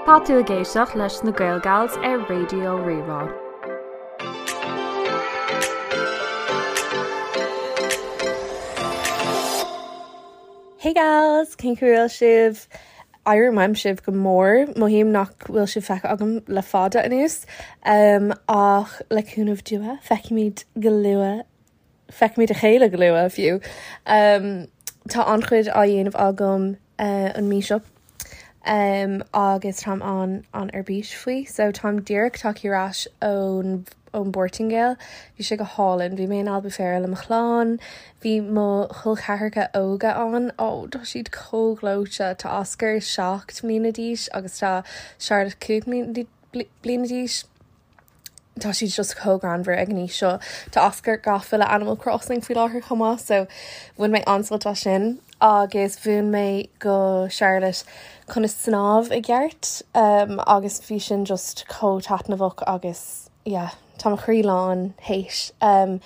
Tá tú ag éisteacht leis na Gaelgals ar Raidió Rí-Rá. Hey gals, cén chaoi a bhfuil sibh? Airím uaim sibh go mór, mothaím nach bhfuil sibh feicthe agam le fada anuas, ach le cúnamh Dé feicfimid go luath Feicfimid a chéile go luath, fiú. Tá an-chuid á dhéanamh agam an mí seo agus táim an-an-ar bís faoi. So táim díreach tagtha ar ais ón ón bPortaingéil. Bhí sé go hálainn. Bhí mé in Albufeira le mo chlann. Bhí mo chol ceathracha óga ann. Ó, tá siad chomh gleoite. Tá Oscar 7 mbliana d'aois agus tá Charlotte 5 bliana d'aois. Tá siad just chomh greannmhar ag an aois seo. Tá Oscar gafa le Animal Crossing faoi láthair chomh maith so bhain mé an-sult as sin agus mhúin mé go Charlotte conas snámh i gceart um, agus bhí sin just chomh taitneamhach agus yeah, tá mo chroí lán théis. Um,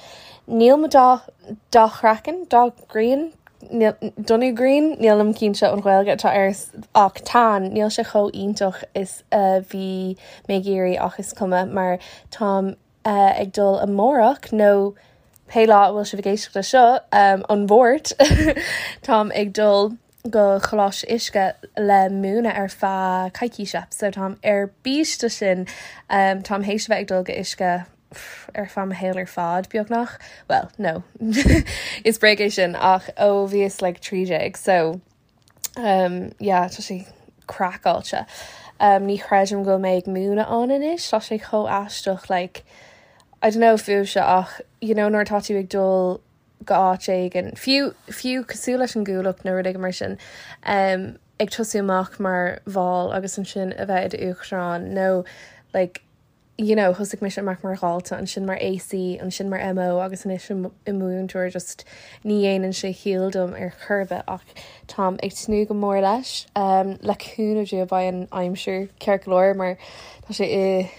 níl mo dath dath chraiceann, dath grian, donnú grian, nílim cinnte an Ghaeilge atá air ach tan, níl sé chomh iontach is a bhí mé ag iarraidh ach is cuma mar táim ag dul amárach nó pé lá a bhfuil sibh ag éisteacht leis seo, an Mháirt, táim ag dul go Coláiste Uisce le múineadh ar feadh coicíse so táim ar bís do sin. Táim théis a bheith ag dul go Uisce ar feadh mo shaol ar fad, beagnach. Bhuel, no. Is bréag é sin ach ó bhíos like 13 so um, yeah, tá sé craiceáilte. Um, ní chreidim go bhfuil mé ag múineadh ann anois, tá sé chomh aisteach like, I don't know fúibhse ach you know nuair atá tú ag dul go áit éigin, fiú, fiú cosúil leis an gCuallacht nó rud éigin mar sin, um, ag tosú amach mar bhall agus ansin a bheith i d'uachtarán nó like, you know, thosaigh mise amach mar dhalta, ansin mar AC, ansin mar MO agus anois i mo mhúinteoir, just ní dhéanann sé ciall dom ar chor ar bith ach táim ag tnúth go mór leis. Um, le cúnamh Dé beidh an aimsir ceart go leor mar tá sé i,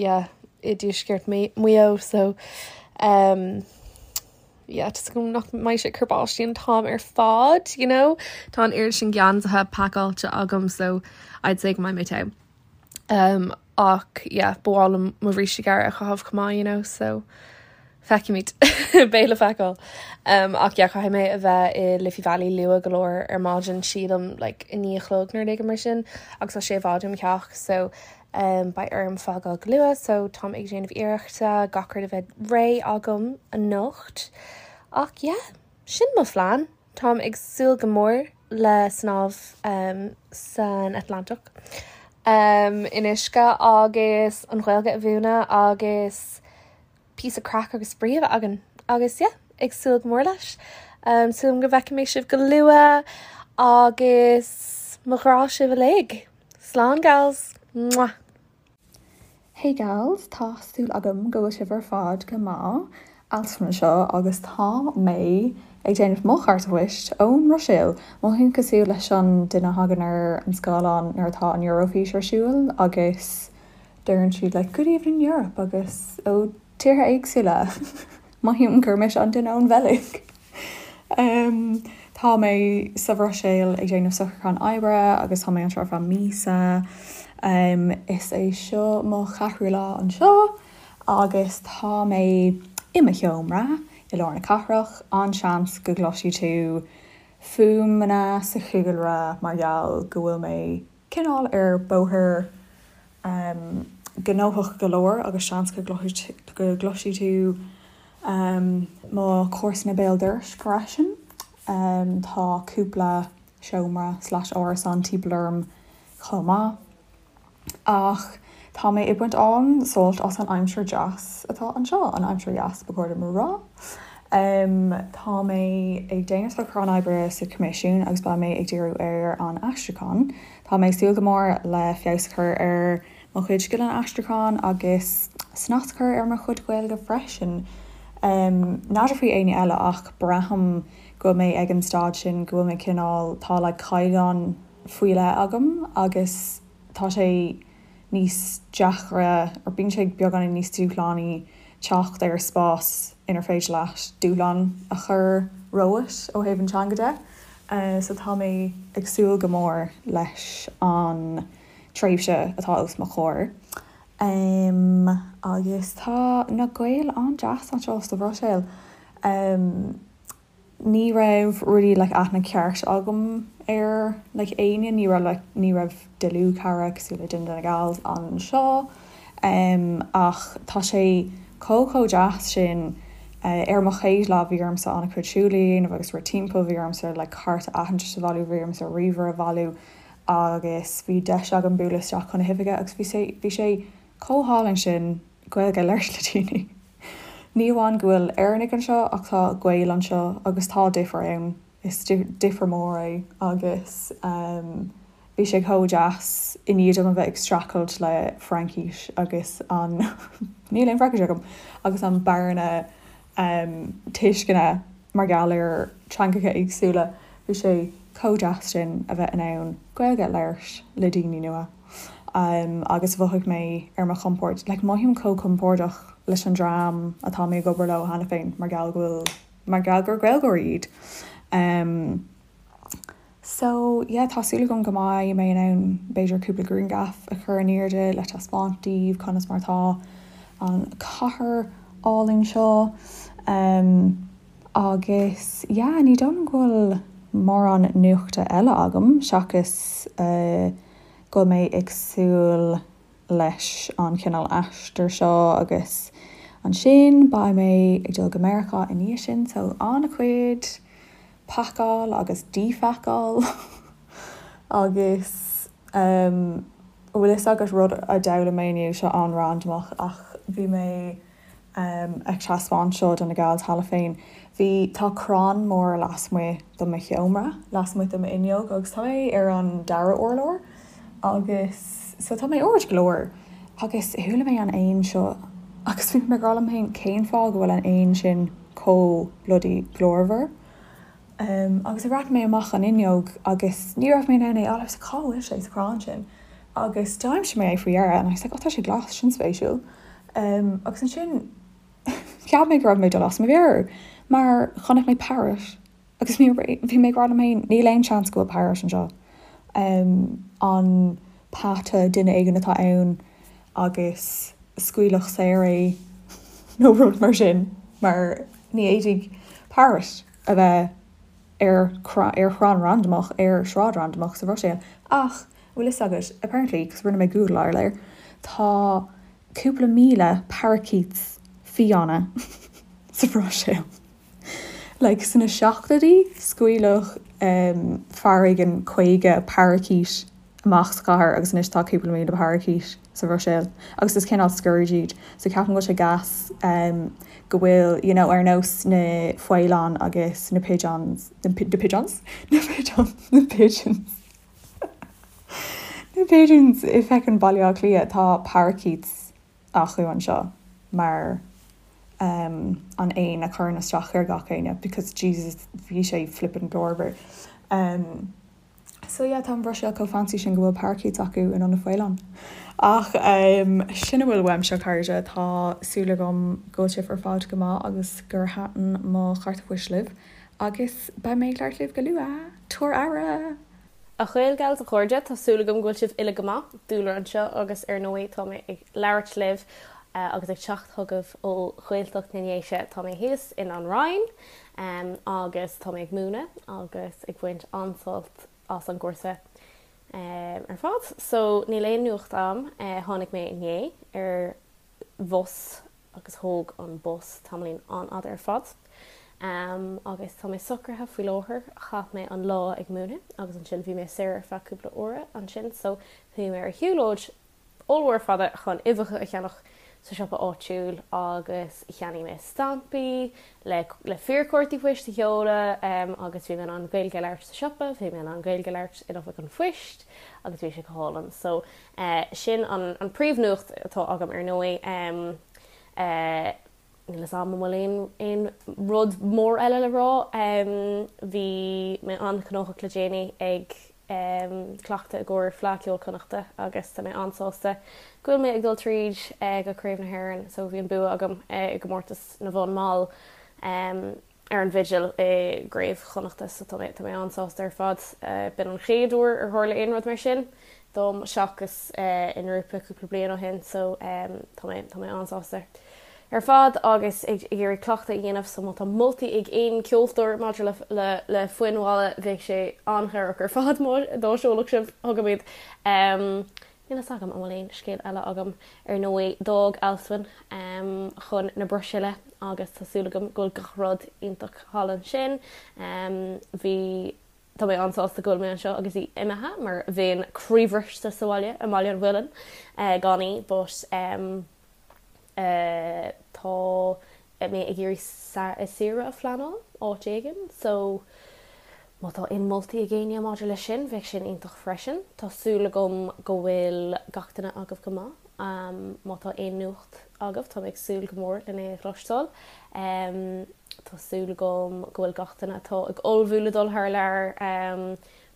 yeah, i dtuaisceart Mhaigh Eo so um, yeah, tá súil agam nach mbeidh sé ag cur báistí an t-am ar fad, you know? Tá an oiread sin geansaithe pacáilte agam so I'd say go mbeidh mé te. Um, ach yeah, ba mhaith liom mo bhríste gearr a chaitheamh chomh maith, you know, so feicfimid. Beidh le feiceáil. Um, ach yeah, caithfidh mé a bheith i Liffey Valley luath go leor ar maidin, sílim like, a 9 a chlog nó rud éigin mar sin, agus tá sé i bhfad ó mo theach, so um, beidh orm fágáil go luath, so táim ag déanamh iarrachta gach rud a bheith réidh agam anocht. Ach yeah, sin mo phlean. Táim ag súil go mór le snámh san Atlantach in uisce agus an Ghaeilge a mhúineadh agus píosa craic agus spraoi a bheith againn agus yeah, ag súil go mór leis. Súil agam go bhfeicfidh mé sibh go luath agus mo ghrá sibh uilig. Slán gals! Mwah! Hey gals, tá súil agam go bhfuil sibh ar fad go maith. Alison anseo agus tá mé ag déanamh mo chárta poist ón mBruiséil. Mothaím cosúil leis an duine a thagann ar an scáileán nuair atá an Eurofís ar siúl agus deireann siad like good evening Europe agus ó tíortha éagsúla. Mothaím gur mise an duine ón Bheilg. Tá mé sa Bhruiséil ag déanamh socrúchán oibre agus tá mé anseo ar feadh míosa. Is é seo mo cheathrú lá anseo agus tá mé i mo sheomra i lár na cathrach. An-seans go gcloisfidh tú fuaimeanna sa chúlra mar gheall go bhfuil mé cineál ar bóthar gnóthach go leor agus seans go gcloisfidh tú mo chomharsana béal dorais freisin. Tá cúpla seomra slash árasán timpeall orm chomh maith. Ach tá mé ag baint an-sult as an aimsir deas atá anseo, an aimsir dheas ba chóir dom a rá. Tá mé ag déanamh socrúchán oibre sa Choimisiún agus beidh mé ag díriú ar an aistriúchán. Tá mé ag súil go mór le feabhas a chur ar mo chuid scileanna aistriúcháin agus snas a chur ar mo chuid Gaeilge freisin. N'fheadar faoi éinne eile ach braithim go bhfuil mé ag an staid sin go bhfuil mé cineál, tá like caighdeán faoi leith agam agus tá sé níos deacra or bíonn sé beagáinín níos dúshlánaí teacht ar spás inar féidir leat dúshlán a chur romhat ó thaobh an teanga de. So tá mé ag súil go mór leis an. tréimhse atá os mo chomhair. Agus tá na Gaeil an-deas anseo sa Bhruiséil. Ní raibh really like aithne ceart agam ar like éinne, ní raibh like ní raibh dlúthchara cosúil le duine de na gals anseo ach tá sé chomh chomh deas sin. Ar mo chéad lá bhí ormsa an-chuid siúil a dhéanamh agus rith timpeall, bhí ormsa like cárta aitheantais a bhailiú, bhí ormsa ríomhaire a bhailiú agus bhí deis agam bualadh isteach chun na hoifige agus bhí sé bhí sé chomh hálainn sin Gaeilge a labhairt le daoine. Ní amháin go bhfuil Éireannaigh anseo ach tá Gaeil anseo agus tá difear ann, is difear mór é agus bhí sé chomh deas i ndiaidh dom a bheith ag streachailt le Fraincis agus an, níl aon Fraincis agam, agus an bearna tuisceana mar gheall ar teangacha éagsúla, bhí sé chomh deas sin a bheith in ann Gaeilge a labhairt le daoine nua agus mhothaigh mé ar mo chompord, like mothaím chomh compordach leis an dream atá mé ag obair leo cheana féin mar gheall go bhfuil, mar gheall gur Gaeilgeoirí iad. So yeah tá súil agam go mbeidh mé in ann b'fhéidir cúpla grianghraf a chur in airde le taispeáint daoibh conas mar atá an chathair álainn seo. Um agus yeah ní dóigh liom go bhfuil mórán nuachta eile agam seachas uh go bhfuil mé ag súil leis an chineál aistear seo agus ansin beidh mé ag dul go Meiriceá i ndiaidh sin so an-chuid pacáil agus díphacáil agus an bhfuil fhios agat rud a d'fhoghlaim mé inniu, seo an-randamach ach bhí mé ag taispeáint seo do na gals cheana féin. Bhí, tá crann mór lasmuigh de mo sheomra, lasmuigh de m'fhuinneog agus tá mé ar an dara urlár agus so tá mé ard go leor agus chuala mé an éan seo agus bhí mé ag rá liom féin cén fáth go bhfuil an éan sin chomh bloody glórmhar. Agus bhreathnaigh mé amach an fhuinneog agus ní raibh mé in ann é a fháil. I was like, cá bhfuil sé sa chrann sin? Agus d'aimsigh mé é faoi dheireadh and I was like, oh tá sé glas, sin spéisiúil. Agus ansin cheap mé go raibh mé ag dul as mo mheabhair mar chonaic mé parrot agus bhí mé ag rá liom féin níl aon seans go bhfuil parrot anseo. An peata duine éigin atá ann agus scaoileadh saor é nó rud mar sin mar ní fhéadfaidh parrot a bheith ar ar chrann randamach ar shráid randamach sa Bhruiséil. Ach, bhfuil fhios agat, apparently, cos rinne mé googleáil air, tá cúpla míle parakeets fiáine sa Bhruiséil. Like, sna seachtóidí, scaoileadh fear éigin 50 parakeet amach sa chathair agus anois tá cúpla míle parakeet sa Bhruiséil agus is cineál scourge iad so ceapaim go bhfuil sé gas go bhfuil you know ar nós na faoileáin agus na pigeons na pigeons? na pigeons na pigeons na pigeons i feckin Baile Átha Cliath tá parakeets acu anseo mar an éan a chuireann isteach ar gach éinne because Jesus bhí sé flippin glórmhar. So yeah, tá an Bhruiséil chomh fancy sin go bhfuil parakeets acu in ionad faoileán. Ach sin a bhfuil uaimse, a chairde. Tá súil agam go bhfuil sibh ar fad go maith agus gur thaitin mo chárta poist libh. Agus beidh mé ag labhairt libh go luath! Tabhair aire! A Ghaelgals, a chairde, tá súil agam go bhfuil sibh uile go maith. Dúlra anseo agus ar ndóigh tá mé ag labhairt libh agus ag teacht chugaibh ó Ghaeltacht na nDéise. Tá mé thíos in An Rinn. Agus tá mé ag múineadh agus ag baint an-sult as an gcúrsa ar fad. So níl aon nuacht a'm. Tháinig mé inné ar bhus agus thóg an bus tamaillín an-fhada ar fad. Agus tá mé socraithe faoi láthair. Chaith mé an lá ag múineadh agus ansin bhí mé saor ar feadh cúpla uaire ansin so chuaigh mé ar shiúlóid ollmhór fada chun uibheacha a cheannach sa siopa áitiúil agus cheannaigh mé stampaí le le fíorchártaí poist a sheoladh agus bhí mé in ann Gaeilge a labhairt sa siopa, bhí mé in ann Gaeilge a labhairt in oifig an phoist agus bhí sé go hálainn. So sin an an príomhnuacht atá agam ar ndóigh. Níl fhios a'm an bhfuil aon aon rud mór eile le rá. Bhí mé an-ghnóthach le déanaí ag cleachtadh i gcomhair Fleadh Cheoil Chonnachta agus tá mé an-sásta go bhfuil mé ag dul tríd go Craobh na hÉireann so bhí an bua agam i gcomórtas na bhfonn mall. Ar an bhfidil i gCraobh Chonnachta so tá mé tá mé an-sásta ar fad. B'in an chéad uair ar tharla aon rud mar sin dom seachas i ngrúpa cúpla bliain ó shin so tá mé tá mé an-sásta ar fad agus ag iarraidh cleachtadh a dhéanamh so má tá moltaí ag aon ceoltóir maidir le le le foinn mhalla bheadh sé an-chabhrach ar fad má dá seolfadh sibh chugam iad. Níl fhios agam an bhfuil aon scéal eile agam. Ar ndóigh, d'fhág Alswyn chun na Bruiséile agus tá súil agam go bhfuil gach rud iontach thall ansin. Bhí, tá mé an-sásta go bhfuil mé anseo agus í imithe mar bheinn croíbhriste sa bhaile, i mBaile an Mhuilinn, gan í but tá mé ag iarraidh saoire a phleanáil áit éigin so má tá aon moltaí ag éinne maidir leis sin bheadh sin iontach freisin. Tá súil agam go bhfuil gach duine agaibh go maith. Má tá aon nuacht agaibh tá mé ag súil go mór lena é a chloisteáil. Tá súil agam go bhfuil gach duine atá ag ullmhú le dul thar lear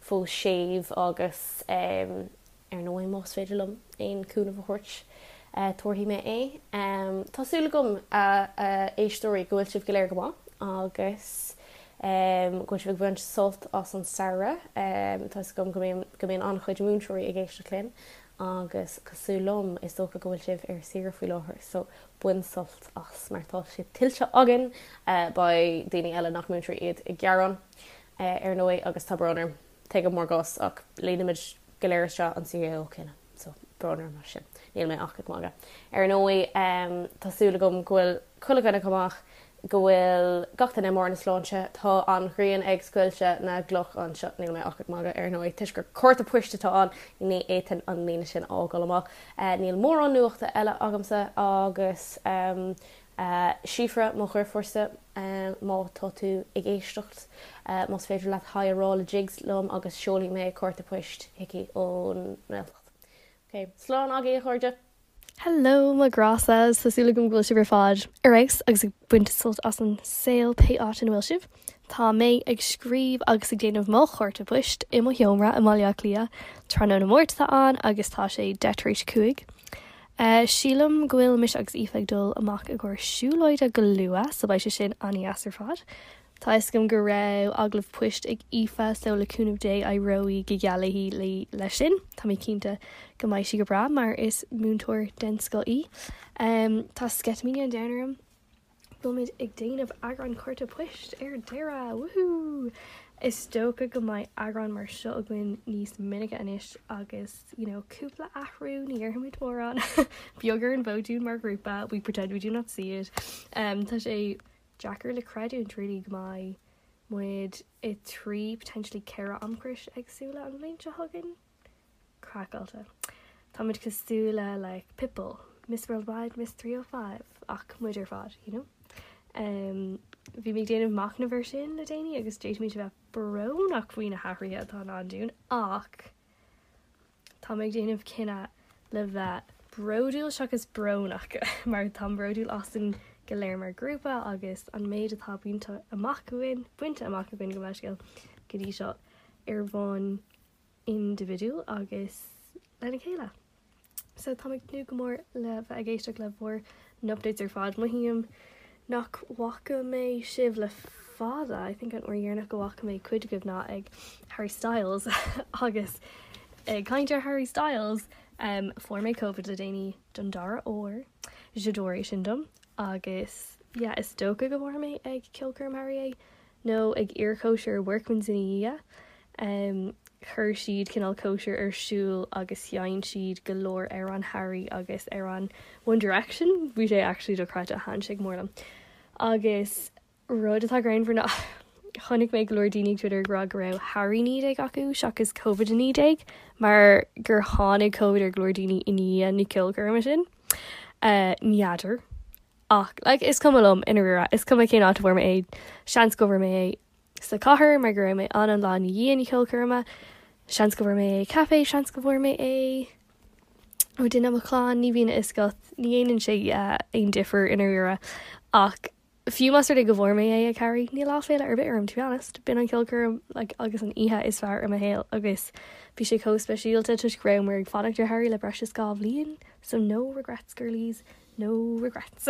fós séimh agus Ar ndóigh, más féidir liom aon cúnamh a thabhairt, tabharfaidh mé é. Tá súil agam, a éisteoirí, go bhfuil sibh go léir go maith agus go bhfuil sibh ag baint sult as an samhradh. Tá 'fhios agam go mbíonn go mbíonn an-chuid múinteoirí ag éisteacht linn agus cosúil liom, is dócha go bhfuil sibh ar saoire faoi láthair, so bain sult as mar tá sé tuillte againn. Beidh daoine eile nach múinteoirí iad ag gearán, ar ndóigh, agus tá brón orm. Tuigim bhur gcás ach líonaimid go léir isteach an CAO céanna so brón orm as sin. Níl mé ach ag magadh. Ar ndóigh tá súil agam go bhfuil chuile dhuine go maith, go bhfuil gach duine i mbarr na sláinte. Tá an ghrian ag scoilteadh na gcloch anseo, níl mé ach ag magadh ar ndóigh, toisc gur cárta poist atá ann, ní fhéadfainn an líne sin a fhágáil amach. Níl mórán nuachta eile agamsa agus Síofra, mo dheirfiúrsa, má tá tú ag éisteacht, más féidir leat haigh a rá le Jigs liom agus seolfaidh mé cárta poist chuici ón nGaeltacht. Ok, slán agaibh a chairde! Hello mo ghrása, tá súil agam go bhfuil sibh ar fad ar fheabhas agus ag baint sult as an saol pé áit ina bhfuil sibh. Tá mé ag scríobh agus ag déanamh mo chárta poist i mo sheomra i mBaile Átha Cliath. Tráthnóna Máirt atá ann agus tá sé 5:10 tar éis. Sílim go bhfuil mise agus Aoife ag dul amach i gcomhair siúlóide go luath so beidh sé sin an-dheas ar fad. Tá fhios agam go raibh agallamh poist ag Aoife so le cúnamh Dé éireoidh go geal léi leis sin. Tá mé cinnte go mbeidh sí go breá mar is múinteoir den scoth í. Tá sceitimíní an domhain orm. Bhfuilimid ag déanamh eagrán cárta poist ar deireadh! Woohoo! Is dócha go mbeidh eagrán mar seo againn níos minice anois agus you know cúpla athrú, ní dhéarfaimid mórán, beag ar an bhfód dúinn mar ghrúpa, we pretend we do not see it. Tá sé deacair le creidiúint really go mbeidh muid i 3 potentially 4 amchrios éagsúla an bhliain seo chugainn. Craiceáilte. Táimid cosúil le like Pitbull, Miss Worldwide, Miss 305 ach muid ar fad, you know? Um, bhí mé ag déanamh machnamh ar sin le déanaí agus d'fhéadfaimis a bheith brónach faoi na hathruithe atá i ndán dúinn ach tá mé ag déanamh cinneadh le bheith bródúil seachas brónach mar táim bródúil asainn go léir mar ghrúpa agus an méid atá bainte amach againn, bainte amach againn gabh mo leithscéal go dtí seo ar bhonn indibhidiúil agus lena chéile. So táim ag tnúth go mór le bheith ag éisteacht le bhur n-updates ar fad. Mothaím nach bhfaca mé sibh le fada, I think an uair dheireanach go bhfaca mé cuid agaibh ná ag Harry Styles agus ag caint ar Harry Styles um, fuair mé Covid le déanaí don dara huair, j'adore é sin dom agus yeah, is dócha go bhfuair mé ag ceolchoirm Harry é. nó ag iarchóisir Workman's ina dhiaidh. Chuir siad cineál cóisir ar siúl agus sheinn siad go leor amhrán Harry agus amhrán One Direction. Bhí sé actually dochreidte, thaitin sé go mór liom. Agus rud atá greannmhar ná chonaic mé go leor daoine ag Twitter ag rá go raibh Harry 19 acu seachas Covid 19 mar gur tháinig Covid ar go leor daoine i ndiaidh na ceolchoirme sin. N'fheadar. Ach, like, is cuma liom, i ndáiríre, is cuma cén áit a bhfuair mé é. Seans go bhfuair mé é sa chathair mar go raibh mé ann an lá ina dhiaidh na ceolchoirme. Seans go bhfuair mé é ag caife, seans go bhfuair mé é ó duine i mo chlann, ní bhíonn a fhios agat, ní dhéanann sé aon difear i ndáiríre. Ach fiú más rud é go bhfuair mé é ag Harry, níl áiféala ar bith orm, to be honest. B'in an cheolchoirm, like, agus an oíche is fearr i mo shaol agus bhí sé chomh speisialta toisc go rabhamar ag fanacht ar Harry le breis is 2 bhliain, so no regrets girlies. No regrets.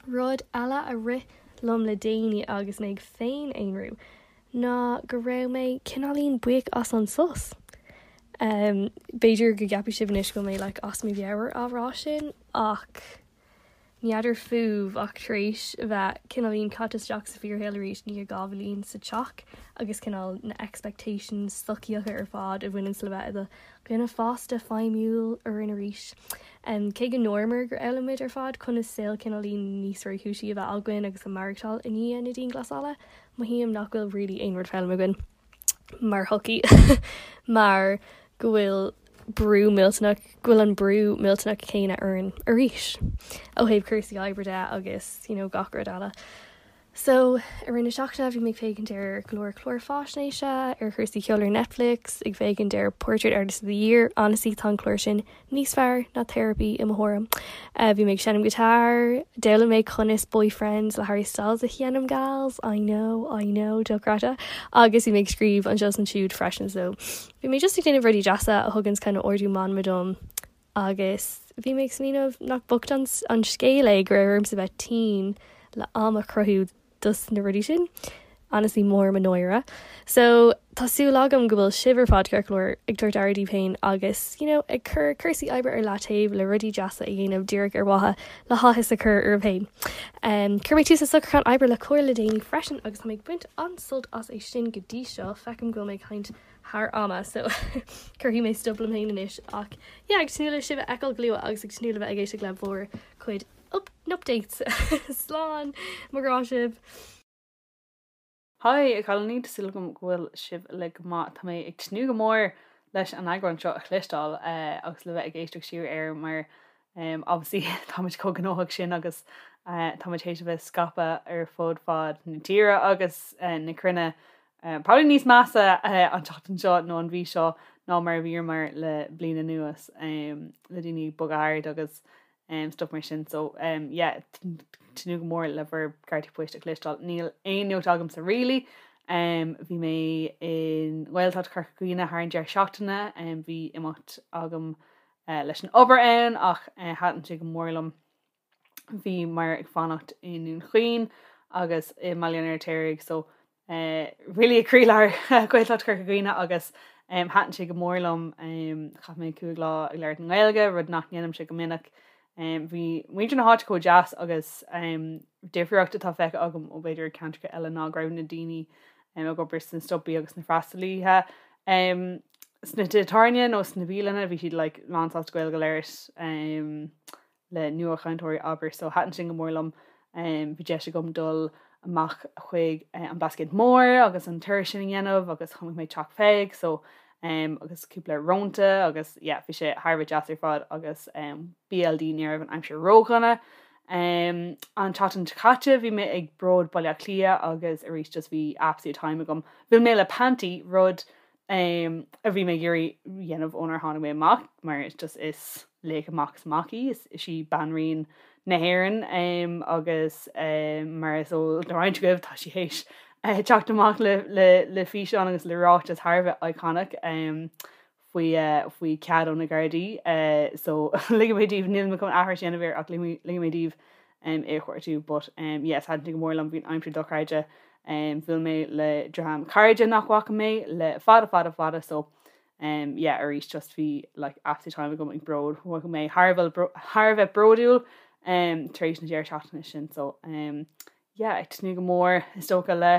Rud eile a rith liom le déanaí agus mé ag féin-aonrú ná go raibh mé cineáilín buíoch as an sos. B'fhéidir go gceapfaidh sibh anois go bhfuil mé like as mo mheabhair á rá sin ach N'fheadar fúibh ach tar éis a bheith cineáilín caite isteach sa fíorshaol arís i ndiaidh 2 bhliain sa teach agus cineál na expectations sochaíocha ar fad a bhaineanns le bheith i do dhuine fásta feidhmiúil orainn arís. Cé go ndúramar gur fhoghlaim muid ar fad conas saol cineáilín níos réchúisí a bheith againn agus a maireachtáil i ndiaidh na dianghlasála, mothaím nach bhfuil really aon rud foghlamtha againn. mar shochaí mar go bhfuil brú millteanach, go bhfuil an brú millteanach céanna orainn arís ó thaobh cúrsaí oibre de agus you know gach rud eile. So i rith na seachtaine bhí mé ag féachaint ar go leor clár faisnéise ar chúrsaí ceoil ar Netflix, ag féachaint ar Portrait Artist of the Year, honestly tá an clár sin níos fearr ná therapy i mo thuairim. Bhí mé ag seinm guitar, d'fhoghlaim mé conas Boyfriends le Harry Styles a sheinm gals, I know, I know, dochreidte, agus bhí mé ag scríobh anseo is ansiúd freisin so bhí mé just ag déanamh rudaí deasa a thuganns kind of ardú meanma dom agus bhí mé ag smaoineamh nach bocht an scéal é go raibh ormsa bheith tinn le am a chruthú dos na rudaí sin. Honestly mór mo náire. So tá súil agam go bhfuil sibh ar fad ceart go leor ag tabhairt aire daoibh féin agus you know ag cur cúrsaí oibre ar leataobh le rudaí deasa a dhéanamh díreach ar mhaithe le háthas a chur oraibh féin. Um, chuir mé tús le socrúchán oibre le Comhar le déanaí freisin agus tá mé ag baint an-sult as é sin go dtí seo. Feicim go bhfuil mé ag caint thar ama so cuirfidh mé stop liom féin anois ach yeah ag tnúth le sibh a fheiceáil go luath agus ag tnúth le bheith ag éisteacht le bhur cuid updates. Slán! Mo ghrá sibh! Haigh, a chailíní, tá súil agam go bhfuil sibh uilig go maith. Tá mé ag tnúth go mór leis an eagrán seo a chloisteáil agus le bheith ag éisteacht siar air mar obviously táimid chomh gnóthach sin agus táimid théis a bheith scaipthe ar fud fad na tíre agus na cruinne. Probably níos measa an tseachtain seo nó an mhí seo ná mar a bhíomar le bliain anuas le daoine ag bogadh thart agus stuff mar sin so yeah tnúth go mór le bhur gcártaí poist a chloisteáil. Níl aon nuacht agamsa really. Bhí mé i nGaeltacht Chorca Dhuibhne thar an deireadh seachtaine, bhí imeacht agam leis an obair ann ach thaitin sé go mór liom. Bhíomar ag fanacht i nDún Chaoin agus i mBaile an Fheirtéaraigh so really i gcroílár Ghaeltacht Chorca Dhuibhne agus thaitin sé go mór liom. Chaith mé 5 lá ag labhairt i nGaeilge, rud nach ndéanaimse go minic. Bhí muintir na háite chomh deas agus difríocht atá feicthe agam ó b'fhéidir ceantracha eile ná go raibh na daoine ag obair sna siopaí agus na freastalaithe sna tithe tábhairne nó sna bialanna, bhí siad like lánsásta Gaeilge a labhairt. le nuachainteoirí abair so thaitin sin go mór liom. Bhí deis agam dul amach chuig an Blascaod Mór agus an turas sin a dhéanamh agus chonaic mé Teach Pheig so agus cúpla rónta agus yeah bhí sé thar a bheith deas ar fad agus BLD ní raibh an aimsir ródhona. An tseachtain seo caite bhí mé ag Bród Baile Átha Cliath agus arís just bhí absolute time agam. Bhuail mé le Panti rud a bhí mé ag iarraidh dhéanamh ónar tháinig mé amach mar is just is laoch amach is amach í, is í banríon na hÉireann agus mar is eol do roinnt agaibh tá sí théis teacht amach le le le físeán agus le ráiteas thar a bheith iconic faoi faoi cead ó na Gardaí so ligfidh mé daoibh níl mé chun aithris a dhéanamh air ach ligfidh mé daoibh é a chuartú but yes thaitin sé go mór liom bhí an aimsir dochreidte bhuail mé le dream cairde nach bhfaca mé le fada fada fada so yeah arís just bhí like absolute time agam ag Bród mhothaigh mé thar a bheith thar a bheith bródúil tar éis na deireadh seachtaine sin so yeah ag tnúth go mór is dócha le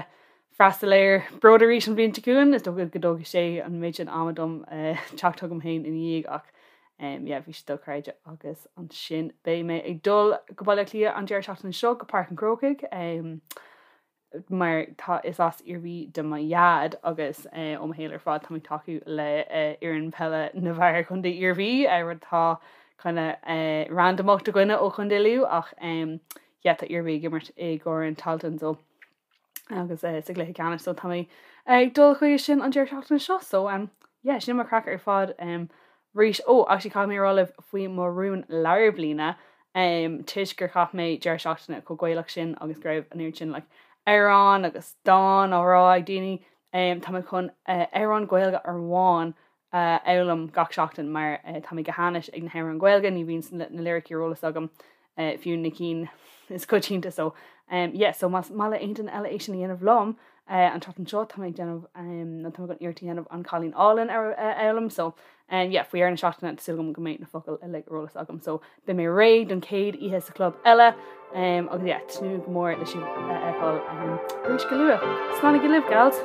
freastal ar Bród arís an bhliain seo chugainn is dócha go dtógfaidh sé an méid sin ama dom teacht chugam féin ina dhiaidh ach yeah bhí sé dochreidte agus ansin beidh mé ag dul go Baile Átha Cliath an deireadh seachtaine seo go Páirc an Chrócaigh mar tá is as Iarmhí do mo dhaid agus ó mo shaol ar fad tá mé ag tacú le fhoireann peile na bhfear Chontae Iarmhí rud atá kind of randamach do dhuine ó Chontae Lú ach yeah tá Iarmhí ag imirt i gCorn Tailteann so agus sa gcluiche ceannais so tá mé ag dul chuige sin an deireadh seachtaine seo so um, yeah, sin mo chraic ar fad um, arís ó actually caithfidh mé a rá libh faoi mo rún lár bliana um, toisc gur chaith mé deireadh seachtaine chomh Gaelach sin agus go raibh an oiread sin like, amhrán agus dán á rá ag daoine um, tá mé chun uh, amhrán Gaeilge amháin a fhoghlaim gach seachtain mar tá mé go hainnis ag na hamhráin Ghaeilge, ní bhíonn na liricí ar eolas agam fiú na cinn is coitianta so. Yeah, so más maith le aon duine eile é sin a dhéanamh liom, an tseachtain seo tá mé ag déanamh, nó tá mé chun iarracht a dhéanamh An Cailín Álainn a fhoghlaim, so yeah, faoi dheireadh na seachtaine tá súil agam go mbeidh na focail uilig ar eolas agam, so beidh mé réidh don chéad oíche sa chlub eile, agus yeah, tnúth go mór le sibh a fheiceáil arís go luath. Slánaigí libh, gals!